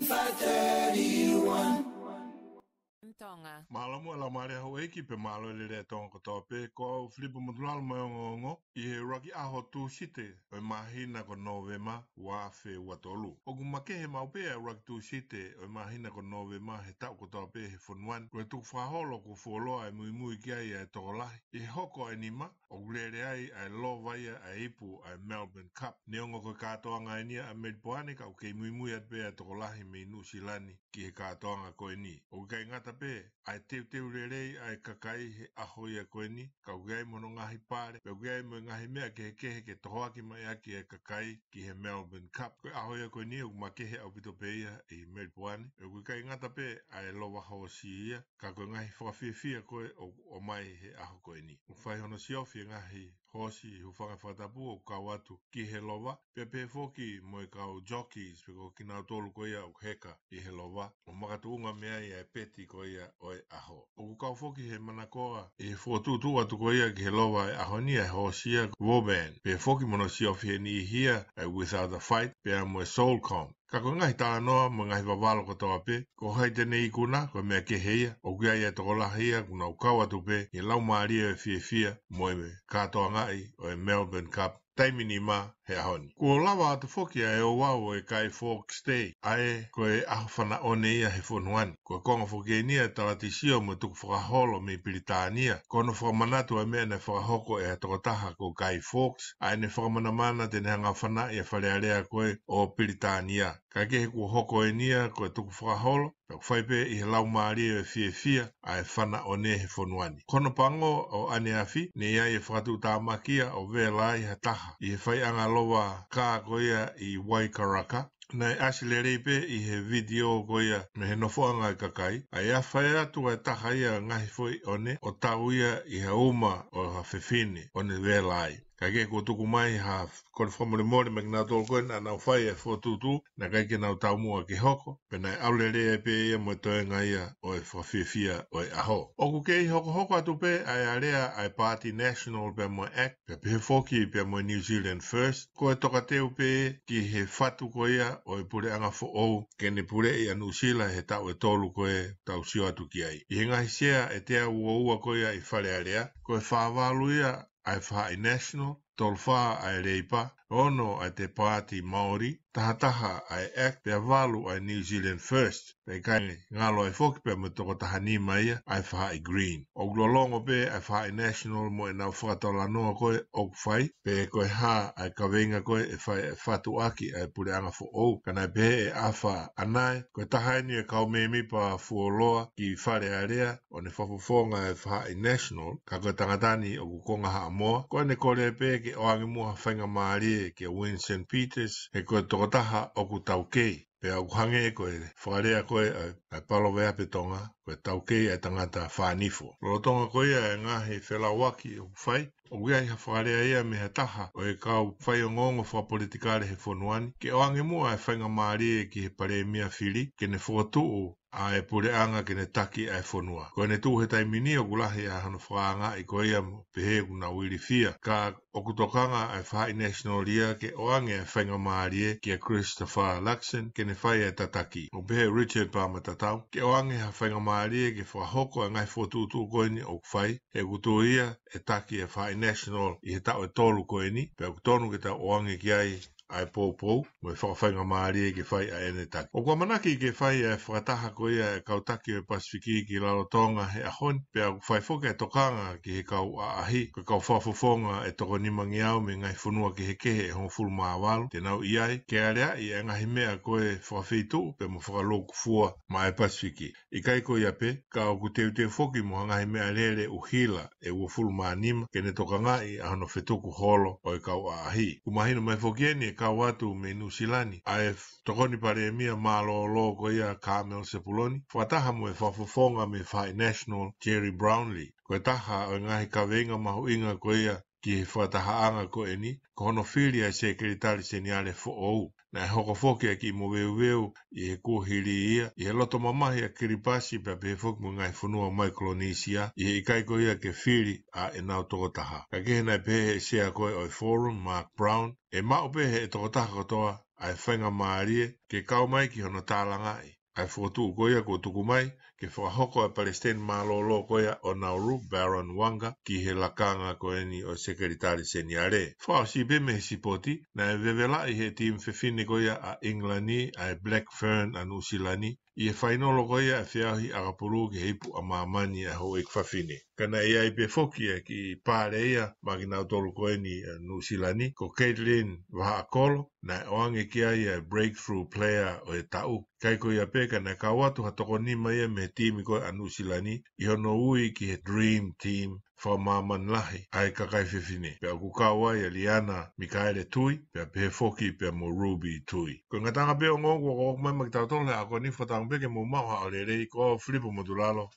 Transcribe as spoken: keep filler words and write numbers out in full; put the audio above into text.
five thirty-one. Tonga. Mālō muʻa e laumālie ʻa houʻeiki pea mālō e lelei ʻa Tonga kotoa pē, ko au Filipo Motulalo mo e ongoongo ʻi he ʻuluaki ʻaho Tūsite ʻo e māhina ko Nōvema, ua afe ua tolu. ʻOku makehe maʻu pē ʻa e ʻuluaki Tūsite ʻo e māhina ko Nōvema he taʻu kotoa pē he fonua ni, ko e tukufakaholo kuo fuoloa e muimui ki ai ʻa e tokolahi. ʻI he hoko ʻa e nima, ʻoku lele ai ʻa e lova ia ʻa e ipu ʻa e Melbourne Cup. Neongo ko e kātoanga eni ia ʻa Melipoane, ka ʻoku kei muimui atu pē ʻa e tokolahi mei Nuʻusila ni ki he kātoanga ko eni. ʻOku ʻikai ngata pē ʻa e teuteu lelei ʻa e kakai he ʻaho ia ko eni, ka ʻoku ʻi ai mo hono ngaahi pale, pea ʻoku ʻi ai mo e ngaahi meʻa kehekehe ke tohoaki mai ʻaki e kakai ki he Melbourne Cup. Ko e ʻaho ia ko eni ʻoku makehe ʻaupito pē ia ʻi Melipoane. ʻOku ʻikai ngata pē ʻa e lova hoosi ia, ka ko e ngaahi fakafiefia ko ē ʻoku ʻomai he ʻaho ko eni. ʻOku fai hono siofi e ngaahi hoosi hūfanga he fakatapu ʻoku kau atu ki he lova, pea pehē foki mo e kau jockeys, pe ko kinautolu ko ia ʻoku heka ʻi he lova, ʻo makatuʻunga mei ai ʻa e peti ko ia ʻo e ʻaho. ʻOku kau foki he manakoa ʻi he fokotuʻutuʻu atu ko ia ki he lova ʻo e ʻaho ni ʻa e hoosi ia ko Vauban, pehē foki mo hono siofi he niʻihi ia ʻa e Without a Fight, pea mo e Soulcom. Ka ko e ngaahi talanoa mo e ngaahi vavalo kotoa pē, ko hai te ne ikuna, ko e meʻa kehe ia. ʻOku ʻi ai e tokolahi ia kuo nau kau atu pē ʻi he laumālie ʻo e fiefia mo e kātoangaʻi ʻo e Melbourne Cup taimi nima he ʻaho ni. Kuo lava atu foki ʻa e ouau ʻo e Guy Fawkes Day, ʻa ē ko e ʻaho fanaʻone ia he fonua ni. Ko e konga foki eni ia e talatisio mo e tukufakaholo mei Pilitānia, ko hono fakamanatu ʻa e meʻa naʻe fakahoko ʻe ha tokotaha ko Guy Fawkes, ʻa ʻene fakamanamana te ne hanga ʻo fanaʻi ʻa e Fale Alea ko ē ʻo Pilitānia. Kae kehe, kuo hoko eni ia ko e tukufakaholo, pea ʻoku fai pē ʻi he laumālie ʻo e fiefia ʻa e fanaʻone he fonua ni. Ko hono pango ʻo ʻaneafi, ne ʻi ai e fakatuʻutāmaki ia ʻo vela ai ha taha ʻi he faiʻanga lova kā ko ia ʻi Waikaraka. Naʻe ʻasi lelei pē ʻi he vitiō ko ia mei he nofoʻanga ʻo e kakai, ʻa e ʻafe atu ʻa e taha ia ʻo e ngaahi foʻi ʻone ʻo tau ia ʻi ha uma ʻo ha fefine ʻo ne vela ai. Kae kehe, kuo tuku mai ha kole fakamolemole maʻa kinautolu ko ē naʻa nau fai e fokotuʻutuʻu, naʻe ʻikai ke nau taumuʻa ke hoko, pea naʻe ʻalu lelei ai pē ia mo e toenga ia ʻo e fakafiefia ʻo e ʻaho. ʻOku kei hokohoko atu pē ʻa e alea ʻa e Paati National pea mo e ACT, pea pehē foki pea mo e New Zealand First, ko e tokateu pē ki he fatu ko ia ʻo e puleʻanga foʻou ke ne puleʻi ʻa Nuʻusila he taʻu ʻe tolu ko ē tau sio atu ki ai. ʻI he ngaahi sea ʻe teau ua ua ko ia ʻi Fale Alea, ko e fā valu ia ʻa e faʻahi National, tolu fā ʻa e Leipa, ono ʻa e Te Paati Māori, taha taha ʻa e ACT, pea valu ʻa e New Zealand First. Pea ʻikai ngalo ai foki pea mo e toko taha nima ia ʻa e faʻahi Green. ʻOku lolotonga pē ʻa e faʻahi National mo ʻenau fakatalanoa ko ē ʻoku fai, pe ko e hā ʻa e kaveinga ko ē ʻe fai ʻe fatu ʻaki ʻa e puleʻanga foʻou, ka naʻe pehē ʻe ʻAfa ʻAnae, ko e taha eni e kau mēmipa fuoloa ki Fale Alea, ʻo ne fakafofonga e faʻahi National, ka ko e tangata ni ʻoku konga Haʻamoa, ko ʻene kole pē ke ʻoange muʻa ha faingamālie kia Winston Peters, he ko e tokotaha ʻoku taukei. Pea ʻoku hangē ko e fakalea ko ē ʻa e, ʻa e paloveape Tonga, ko e taukei ʻa e tangata fānifo. Lolotonga ko ia e ngaahi felauaki ʻoku fai, ʻoku ʻi ai ha fakalea ia mei ha taha ʻo e kau faiongoongo fakapolitikale he fonua ni, ke ʻoange muʻa e faingamālie ki he palēmia fili, ke ne fokotuʻu ʻa e puleʻanga ke ne taki ʻa e fonua. Ko ʻene tuʻu he taimi ni ʻoku lahi ʻa hono fakaangaʻi ko ia mo pehē ʻoku nau ilifia. Ka ʻoku tokanga ʻa e faʻahi National ia ke ʻoange ʻa e faingamālie kia Christopher Luxon ke ne fai ʻa e tataki. ʻOku pehē ʻe Richard Palmer Tatau, ke ʻoange ha faingamālie ke fakahoko ʻa e ngaahi fokotuʻutuʻu ko eni ʻoku fai, he ʻoku tuʻu ia ʻe taki ʻa e faʻahi National ʻi he taʻu ʻe tolu ko eni, pea ʻoku tonu ke tau ʻoange ki ai ʻa e poupou mo e fakafaingamālie ke fai ʻa ʻene taki. ʻOku ʻamanaki ke fai ʻa e fakataha ko ia ʻa e kau taki ʻo e Pasifiki ki Lalotonga he ʻaho ni, pea ʻoku fai foki ʻa e tokanga ki he kau ʻaʻahi, ko e kau fakafofonga ʻe toko nimangeau mei he ngaahi fonua kehekehe ʻe hongofulu mā valu te nau ʻi ai, ke aleaʻi ʻa e ngaahi meʻa ko ē fakafeituʻu pea mo fakalūkufua maʻa e Pasifiki. ʻIkai ko ia pē, ka ʻoku teuteu foki mo ha ngaahi meʻalele ʻuhila ʻe uofulu mā nima ke ne tokangaʻi ʻa hono fetuku holo ʻo e kau ʻaʻahi. ʻOku mahino mai foki eni ʻe kau atu mei Nuʻusila ni ʻa e tokoni palēmia mālōlō ko ia Carmel Sepuloni, fakataha mo e fakafofonga mei he faʻahi National Gerry Brownlee. Ko e taha ʻo e ngaahi kaveinga mahuʻinga ko ia ki he fakatahaʻanga ko eni, ko hono fili ʻa e Sekelitali Seniale foʻou. Naʻe hoko foki ʻa e kiʻi moveuveu ʻi he kuohili ia, ʻi he loto mamahi ʻa Kiripasi pea pehē foki mo e ngaahi fonua Maikolonisia, ʻi he ʻikai ko ia ke fili ʻa ʻenau tokotaha. Kae kehe, naʻe pehē ʻe he sea ko ē ʻo e Forum, Mark Brown, ʻe maʻu pē ʻe he tokotaha kotoa ʻa e faingamālie ke kau mai ki hono tālangaʻi ʻa e fokotuʻu ko ia kuo tuku mai ke fakahoko ʻa e palesiteni mālōlō ko ia ʻo Nauru, Baron Wanga, ki he lakanga ko eni ʻo e Sekelitali Seniale. Fakaʻosi pē mei he sipoti, naʻe vevelaʻi he timi fefine ko ia ʻa ʻIngilani, ʻa e Black Fern ʻa Nuʻusila ni, ʻi he fainolo ko ia ʻa e feʻauhi ʻakapulu ki he ipu ʻa māmani ʻa e houʻeiki fafine. Ka naʻe ʻi ai pē foki ʻa e kiʻi pale ia maʻa kinautolu ko eni ʻa Nuʻusila ni, ko Caitlin Vahaʻakolo, naʻe ʻoange ki ai ʻa e Breakthrough Player ʻo e taʻu. ʻIkai ko ia pē, ka naʻe kau atu ha toko nima ia mei he timi ko ia ʻa Nuʻusila ni ʻi hono ui ki he Dream Team fakamāmani lahi ʻa e kakai fefine. Pea ʻoku kau ai ʻa Liana Mikaele Tui, pea pehē foki pea mo Ruby Tui. Ko e ngataʻanga pē ʻo e ongo ʻoku ʻoku mai maʻa kitautolu he ʻaho ko eni, fakatauange pē ke mou maʻu ha ʻaho lelei. Ko Filipo Motulalo,